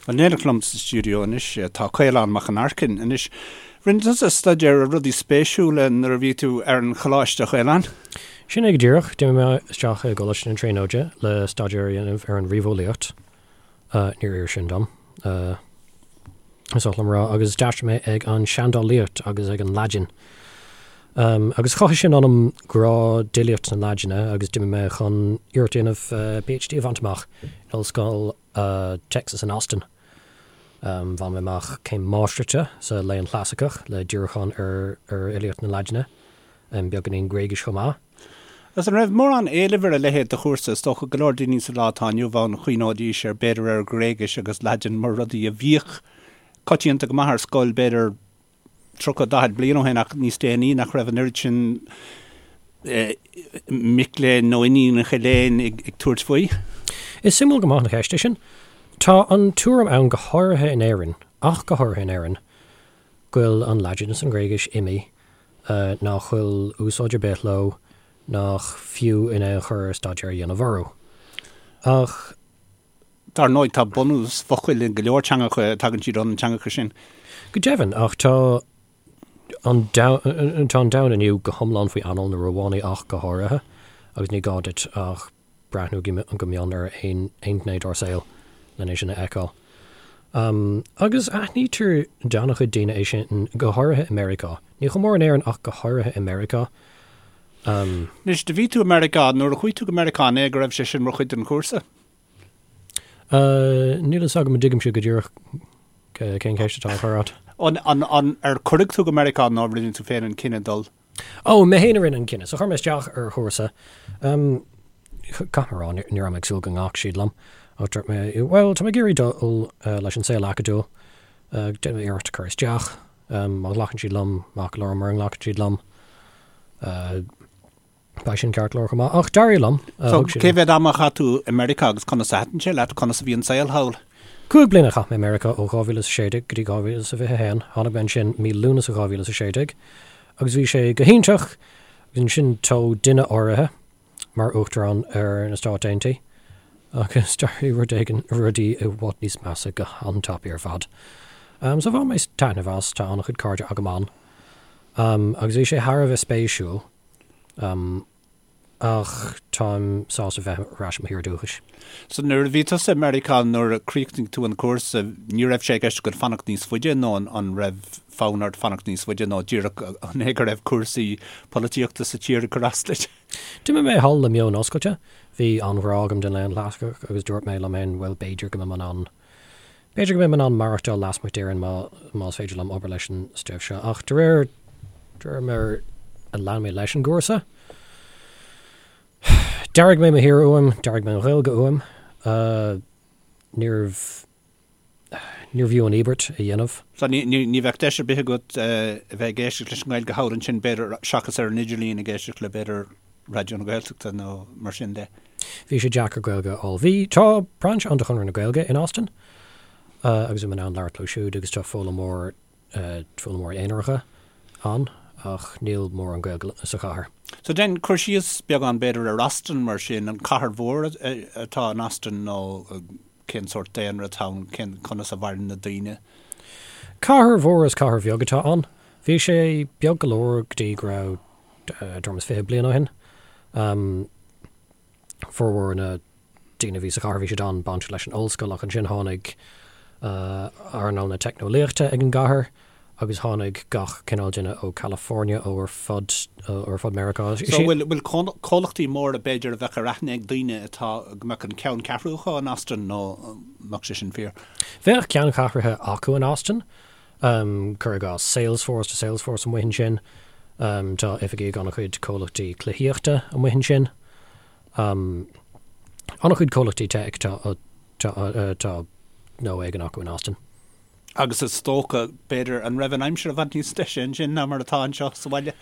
In éineacht liom sa stiúideo anois tá Caolán Mac an Aircinn. Anois, rinne tusa staidéar ar rudaí spéisiúla nuair a bhí tú ar an choláiste, a Chaoláin? Sin é go díreach. D'imigh mé isteach i gColáiste na Tríonóide le staidéar a dhéanamh ar an ríomheolaíocht. Níor oir sin dom, is oth liom a rá, agus d'aistrigh mé ag an seandálaíocht agus ag an Laidin. Agus chothaigh sin ionam grá d'fhilíocht na Laidine agus d'imigh mé chun iarracht a dhéanamh PhD a bhaint amach in Ollscoil Texas in Austin. Bhain mé amach céim máistreachta sa Léann Chlasaiceach le díriúchán ar fhilíocht na Laidine, beagáinín Gréigis chomh maith. Agus an raibh mórán éilimh ar a leithéid de chúrsa? Is dócha go leor daoine sa lá atá inniu ann chuimhneoidís ar b'fhéidir ar Ghréigis agus Laidin mar rudaí a bhíodh coitianta go maith ar scoil b'fhéidir 30, 40 bliain ó shin ach níos déanaí nach raibh an oiread sin mic léinn nó iníonacha léinn ag tabhairt faoi. Is suimiúil go maith an cheist é sin. Tá an tuairim ann go háirithe in Éirinn, ach go háirithe in Éirinn, go bhfuil an Laidin is an Ghréigis imithe, nach bhfuil úsáid ar bith leo, nach fiú in aon chor staidéar a dhéanamh orthu. Ach. Dar ndóigh, tá bunús focail in go leor teangacha, tagann siad ó na teangacha sin. Go deimhin, ach tá an tá an domhan inniu go hiomlán faoi anáil na Rómhánaigh ach go háirithe, agus ní gá duit ach breathnú go mion ar aon ghné dár saol len é sin a fheiceáil. Agus aithnítear d'an-chuid daoine é sin, go háirithe i Meiriceá. Ní chomh mór in Éirinn ach go háirithe i Meiriceá. Anois, do bhí tú i Meiriceá, nuair a chuaigh tú go Meiriceá, an é go raibh sé sin mar chuid den chúrsa? Níl a fhios agam an dtuigimse go díreach cén cheist atá á chur agat. An, an, an, ar cuireadh tú go Meiriceá nó rinne tú féin an cinneadh dul? Ó, mé féin a rinne an cinneadh. So chuir mé isteach ar chúrsa. Caithfidh mé a rá, ní raibh mé ag súil go nglacfadh siad liom. Ach dúirt mé, bhuel, tá mé ag iarraidh dul leis an saol acadúil. Déanfaidh mé iarracht cur isteach. Má ghlacann siad liom, maith go leor, mura nglacann siad liom, beidh sin ceart go leor chomh maith. Ach d'éirigh liom. So, cé mhéad ama a chaith tú i Meiriceá agus conas a thaitin sé leat? Conas a bhí an saol thall? 5 bliana a chaith mé i Meiriceá ó 2016 go dtí 2021. Tháinig mé ansin mí Lúnasa 2016 agus bhí sé go hiontach agus ansin toghadh duine áirithe mar Uachtarán ar na Stáit Aontaithe agus d'éirigh rud éigin, rudaí i bhfad níos measa go han-tapaidh ar fad. So bhain mé taitneamh as, tá an-chuid cairde agam ann agus bhí sé thar a bheith spéisiúil ach táim sásta bheith ar ais i mo thír dúchais. So nuair a bhí tusa i Meiriceá nuair a chríochnaigh tú an cúrsa ní raibh sé i gceist agat fanacht níos faide nó an raibh fonn ort fanacht níos faide nó díreach an é go raibh cúrsaí polaitíochta sa tír ag cur as duit? D'imigh mé thall le meon oscailte. Bhí an-ghrá agam don léann chlasaiceach agus dúirt mé liom féin, bhuel, b'fhéidir go mbeidh mé in ann, b'fhéidir go mbeidh mé in ann maireachtáil lasmuigh d'Éirinn má, más féidir liom obair leis an stuif seo. Ach de réir, de réir mar a lean mé leis an gcúrsa, d'airigh mé mo thír uaim, d'airigh mé an Ghaeilge uaim. Níorbh. Níorbh fhiú an íobairt a dhéanamh. So ní, ní, ní bheadh deis ar bith agat a bheith ag éisteacht leis an nGaeilge thall ansin, b'fhéidir, seachas ar an idirlíon ag éisteacht le, b'fhéidir, Raidió na Gaeltachta nó mar sin de. Bhí sé deacair Gaeilge a fháil. Bhí, tá brainse ann de Chonradh na Gaeilge in Austin agus bhí mé in ann labhairt leo siúd agus tá foghlaimeoir, foghlaimeoirí aonaracha ann ach níl mórán Gaeilge sa chathair. So déan cur síos beagán b'fhéidir ar Austin mar sin, an cathair mhór atá in Austin nó Cén sórt daonra atá ann? Cén, conas a mhaireann na daoine? Cathair mhór is cathair bheag atá ann. Bhí sé beag go leor go dtí go raibh tuairim is 20 bliain ó shin. Formhór na daoine a bhí sa chathair bhí siad an-bainteach leis an ollscoil ach ansin tháinig earnáil na teicneolaíochta ag an gcathair agus tháinig gach cineál duine ó California, ó ar fud, ar fud Meiriceá. So bhfuil, bhfuil comhlachtaí móra b'fhéidir a bheadh ar aithne ag daoine atá, go mbeadh an ceanncheathrú acu in Austin nó an mbeadh sé sin fíor? Bheadh ceanncheathruithe acu in Austin, cuir i gcás Salesforce, tá Salesforce amuigh ansin, tá oifigí ag an-chuid comhlachtaí cluichíochta amuigh ansin, an-chuid comhlachtaí tech tá, tá, tá gnó éigin acu in Austin. Agus is dócha, b'fhéidir, an raibh an aimsir i bhfad níos deise ansin ná mar atá anseo sa bhaile?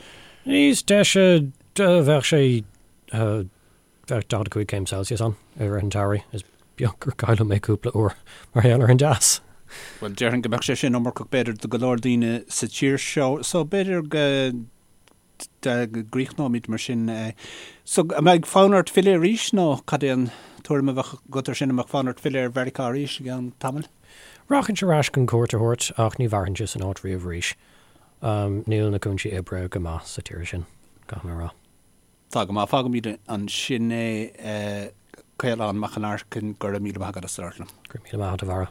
Níos deise, bheadh sé, bheadh 45 céim Celsius ann i rith an tsamhraidh. Is beag gur cailleadh mé cúpla uair mar gheall ar an dteas. Bhuel, déarfainn go mbeadh sé sin iomarcach, b'fhéidir, do go leor daoine sa tír seo. So, b'fhéidir go gcríochnóimid mar sin. So, an mbeidh fonn ort filleadh arís nó cad é an tuairim a bheadh agat ar sin, an mbeadh fonn ort filleadh ar Mheiriceá arís i gceann tamaill? Rachainnse ar ais chun cuairt a thabhairt ach ní mhairfinnse san áit riamh arís. Níl na cúinsí oibre go maith sa tír sin, caithfidh mé a rá. Tá go maith. Fágfaimid ansin é. Caolán Mac an Aircinn, go raibh míle maith agat as labhairt liom. Go raibh míle maith agat, a Bharra.